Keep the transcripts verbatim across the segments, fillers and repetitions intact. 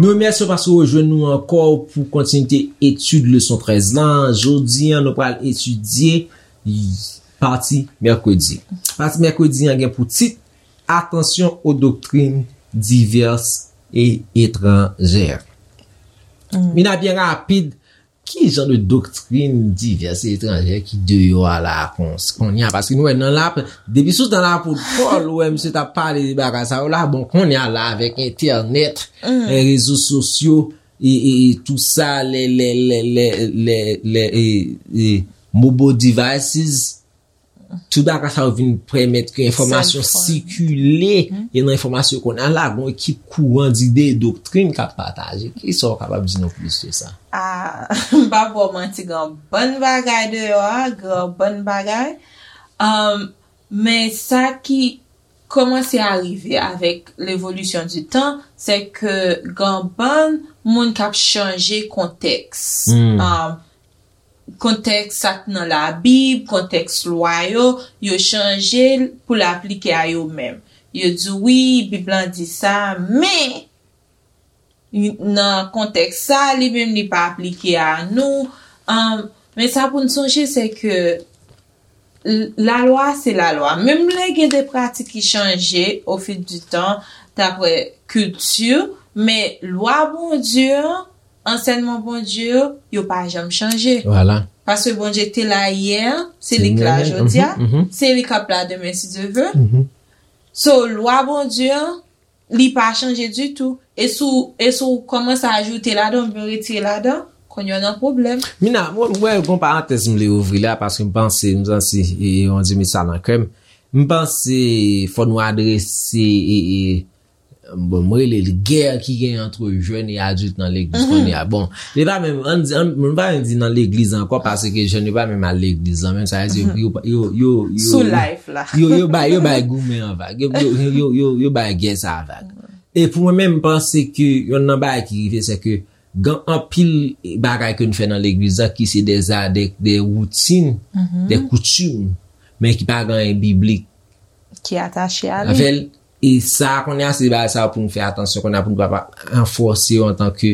Nou remèsye w paske w rejwenn nou ankò pou kontinite etid leson trèz lan. Jodi a, nou pral etidye pati mèkredi. Pati mèkredi an gen pou tit Attention aux doctrines diverses et étrangères. Mina, byen rapid, ki jan de doktrin divès e etranjè ki deyò a la a kon, kounye a? Paske nou wè nan la, depi sou tan lapot Pòl, ou wè misye t ap pale de bagay sa yo la, bon, kounye a la avèk entènèt, e, rezo sosyo, e, e, e tou sa, lè, lè, lè, lè, lè, lè, e, e, mobile devices, tout bagay sa yo vin pèmèt ke enfòmasyon sikile, e nan enfòmasyon kounye a la, gon ekip kouran dide e doktrin k ap pataje. Kisa w kapab di nou plis de sa? Ah, m pa ba w manti, gen yon bann bagay deyò a, gen yon bann bagay. Um, men sa ki kòmanse a rive avèk levolisyon di tan, se ke gen yon bann moun k ap chanje kontèks. Um, kontèks sa k nan Labib, kontèks lwa yo, yo chanje l pou l aplike a yo menm. Yo di, "Wi, Bib lan di sa, men nan kontèks sa, li menm li pa aplike a nou." Um, men sa pou n sonje, se ke l-, lalwa se lalwa. Menm lè gen de pratik ki chanje au fil du temps, daprè kilti, men lwa Bondye an, ansèyman Bondye yo, yo pa janm chanje. Vwala. Paske Bondye te la yè, se li k la jodi a, se li k ap la demen si Dye ve. So, lwa Bondye an, li pa chanje ditou. E si w, e si w kòmanse ajoute ladan oubyen retire ladan, kounye a w nan pwoblèm. Mina, mwen, mwen, gon parantèz m vle ouvri la, paske m panse, m santi, e, e, yon ti mesaj nan kè m. M panse fò nou adrese, e, e, bon, m rele l gè ki gen ant jèn e adilt nan legliz kounye a. Bon, li pa menm, ann di, ann, m pa menm di nan legliz ankò, paske jèn yo pa menm al legliz lan menm, sa vle di yo, yo, yo, yo, sou live la. Yo, yo bay, yo bay goumen an vag. Yo, yo, yo, yo, yo bay gè sa a vag. E pou mwen menm, m panse ke yonn nan bagay ki rive, se ke gen anpil bagay ke nou fè nan legliz la ki se de, de, de woutin, de koutim, men ki pa gen anyen biblik ki atache a li. Avè l. E sa, kounye a, se bagay sa pou nou fè atansyon, kounye a pou nou pa, pa ranfòse yo antanke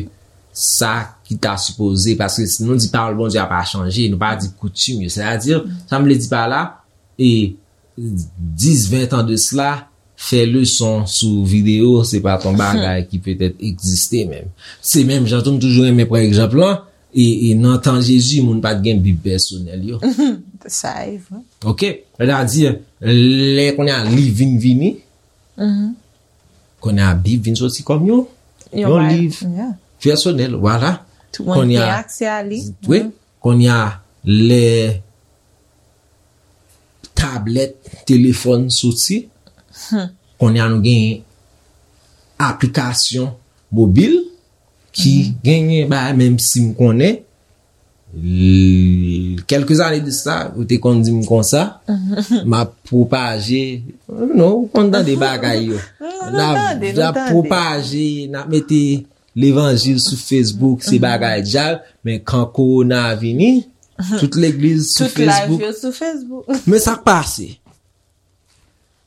sa ki ta sipoze, paske si nou di pawòl Bondye a pa chanje, nou pa di koutim yo. Sètadi, sa m vle di pa la, e dis, ven tan de sila, fè leson sou videyo, se pa t yon bagay ki petèt egziste menm. Se menm jan tou, m toujou renmen pran egzanp lan, e, e nan tan Jezi, moun pa t gen Bib pèsonèl yo. Sa e vre. Ok? Sètadi, lè kounye a liv vin vini, kounye a Bib vin soti kòm yon, yon liv pèsonèl, vwala. Tout moun gen aksè a li. Wi. Kounye a, lè tablèt, telefòn soti, kounye a nou gen aplikasyon mobil ki genyen bagay, menm si m konnen, l-, kèlke zane de sa, ou te konn di m konsa, m ap pwopaje, non, ou konn tande bagay yo. N ap, n ap pwopaje, n ap mete levanjil sou Facebook, se bagay dyab, men kan kowona vini, tout legliz sou Facebook. Tout live yo sou Facebook. Men sa k pase.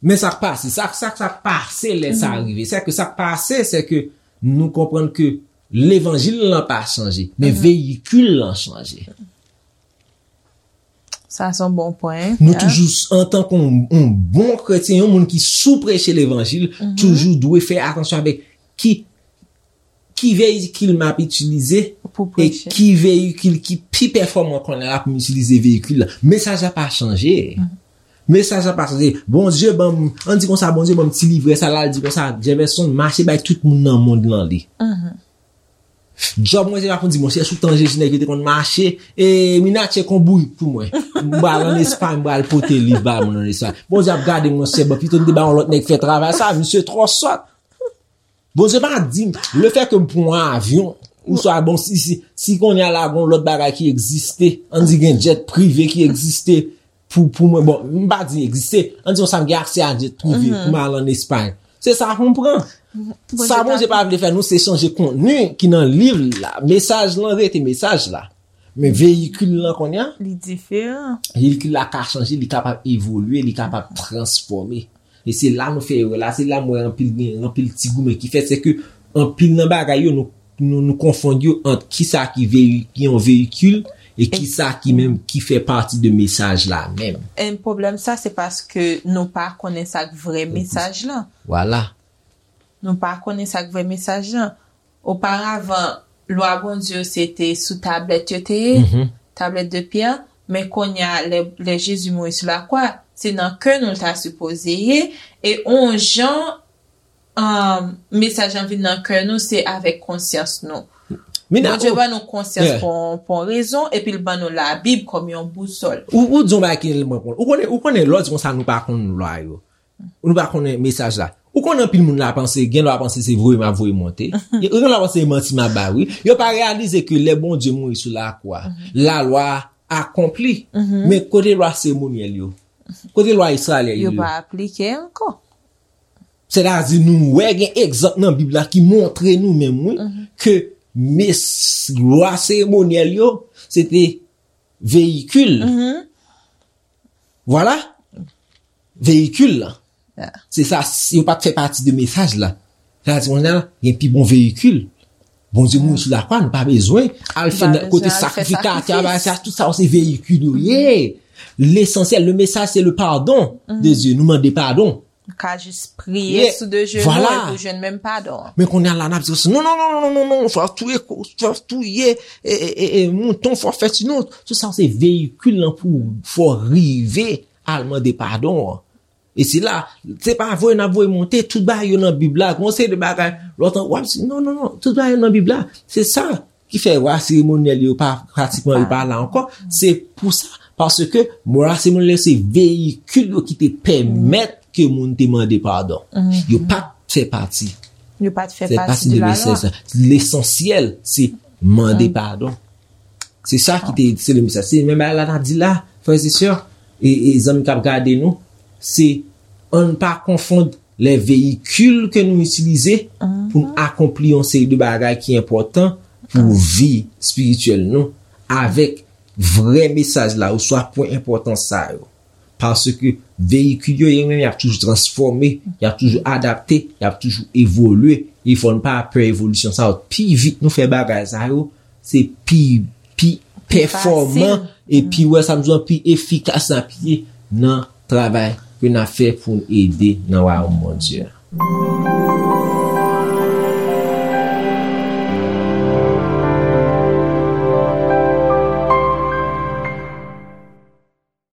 Men sa k pase, sa, sa, sa k pase lè sa rive. Se ke sa k pase, se ke nou konprann ke levanjil lan pa chanje, men veyikil lan chanje. Sa se yon bon pwen. Nou toujou, antanke yon, yon bon kretyen, yon moun ki sou preche levanjil, toujou dwe fè atansyon avèk ki, ki veyikil m ap itilize e ki veyikil ki pi pèfòman kounye a pou m itilize veyikil la. Mesaj la pa chanje. Mesaj la pa chanje. Bondye ban m, ann di konsa, Bondye ban m ti livrè sa la, l di konsa, Jefferson, mache bay tout moun nan mond lan li. Djòb mwen se pa pou di, monchè, sou tan Jezi nèg yo te konn mache, e Mina tcheke yon bourik pou mwen. M pral ann Espay, m pral pote liv ba moun ann Espay. Bondye ap gade m, monchè, bon, pito m te ba yon lòt nèg fè travay sa, misye twò sòt. Bondye pa di m, lefètke m pran yon avyon, oswa, bon, si, si, si kounye a la, gon lòt bagay ki egziste, ann di gen jet prive ki egziste, pou, pou mwen, bon, m pa di egziste, ann di konsa m gen aksè a jet prive pou m al ann Espay. Se sa pou m pran. Sa Bondye pa vle fè nou, se chanje kontni ki nan liv la. Mesaj lan rete mesaj la. Men veyikil lan kounye a, Li diferan. Veyikil la ka chanje, li kapab evolye, li kapab transfòme. E se la nou fè erè la, se la m wè anpil gen, anpil ti goumen ki fèt, se ke anpil nan bagay yo, nou, nou, nou konfonn yo ant kisa ki veyi, ki yon veyikil e kisa ki menm ki fè pati de mesaj la menm. E pwoblèm sa, se paske nou pa konnen sa k vrè mesaj lan. Vwala. Nou pa konnen sa k vrè mesaj lan. Oparavan, lwa Bondye yo se te sou tablèt yo te ye, tablèt de pyè, men kounye a, lè, lè Jezi mouri sou lakwa, se nan kè nou l ta sipoze ye, e on jan, um, mesaj lan vin nan kè nou, se avèk konsyans nou. Bondye ban nou konsyans pou, pou yon rezon, epi l ban nou Labib kòm yon bousòl. Ou, ou di yon bagay ki tèlman bon. Ou konnen, ou konnen, lè w di konsa nou pa konn lwa yo. Nou pa konnen mesaj la. Ou konnen anpil moun la panse, gen lwa panse se voye m ap voye monte. Gen lwa panse se manti m ap bay, wi. Yo pa reyalize ke lè Bondye mouri sou lakwa, lalwa akonpli. Men kote lwa seremonyèl yo? Kote lwa Izrayèl yo? Yo pa aplike ankò. Sètadi nou wè gen egzanp nan Bib la ki montre nou menm, wi, ke mes, lwa seremonyèl yo, se te veyikil. Vwala. Veyikil la. Se sa, yo pa t fè pati de mesaj la. Sètadi, kounye a, gen pi bon veyikil. Bondye mouri sou lakwa, nou pa bezwen al fè nan kote sakrifikatè, bagay sa, tout sa, se veyikil yo ye. Lesansyèl, le mesaj, se le pardon de Dieu. Nou mande padon. Ou ka jis priye sou de jenou epi ou jwenn menm padon an. Men kounye a la, n ap di, non, non, non, non, non, non, fò touye, fò touye, e, e, e, e, mouton, fò fè ti non. Tout sa, se veyikil lan pou fò rive al mande padon an. E se la, se pa voye n ap voye monte, tout bagay yo nan Bib la, gon seri de bagay, lòt an, w ap di, non, non, non, tout bagay yo nan Bib la. Se sa ki fè lwa seremonyèl yo pa pratikman yo pa la ankò. Se pou sa, paske lwa seremonyèl yo se veyikil yo ki te pèmèt ke moun te mande padon. Yo pa t fè pati. Yo pa t fè pati de lalwa. Lesansyèl, se mande padon. Se sa ki te, se le mesaj. Se menm bagay la n ap di la, frè e sè, e, e zanmi k ap gade nou, se ann pa konfonn lè veyikil ke nou itilize pou n akonpli yon seri de bagay ki enpòtan pou vi espirityèl nou avèk vrè mesaj la oswa pwen enpòtan sa yo. Paske veyikil yo, yo menm, y ap toujou transfòme, y ap toujou adapte, y ap toujou evolye. E fò n pa pè evolisyon sa yo. Pi vit nou fè bagay sa yo, se pi, pi pèfòman e pi, wè sa m di w, pi efikas n ap ye nan travay ke n ap fè pou n ede nan wayòm Bondye a.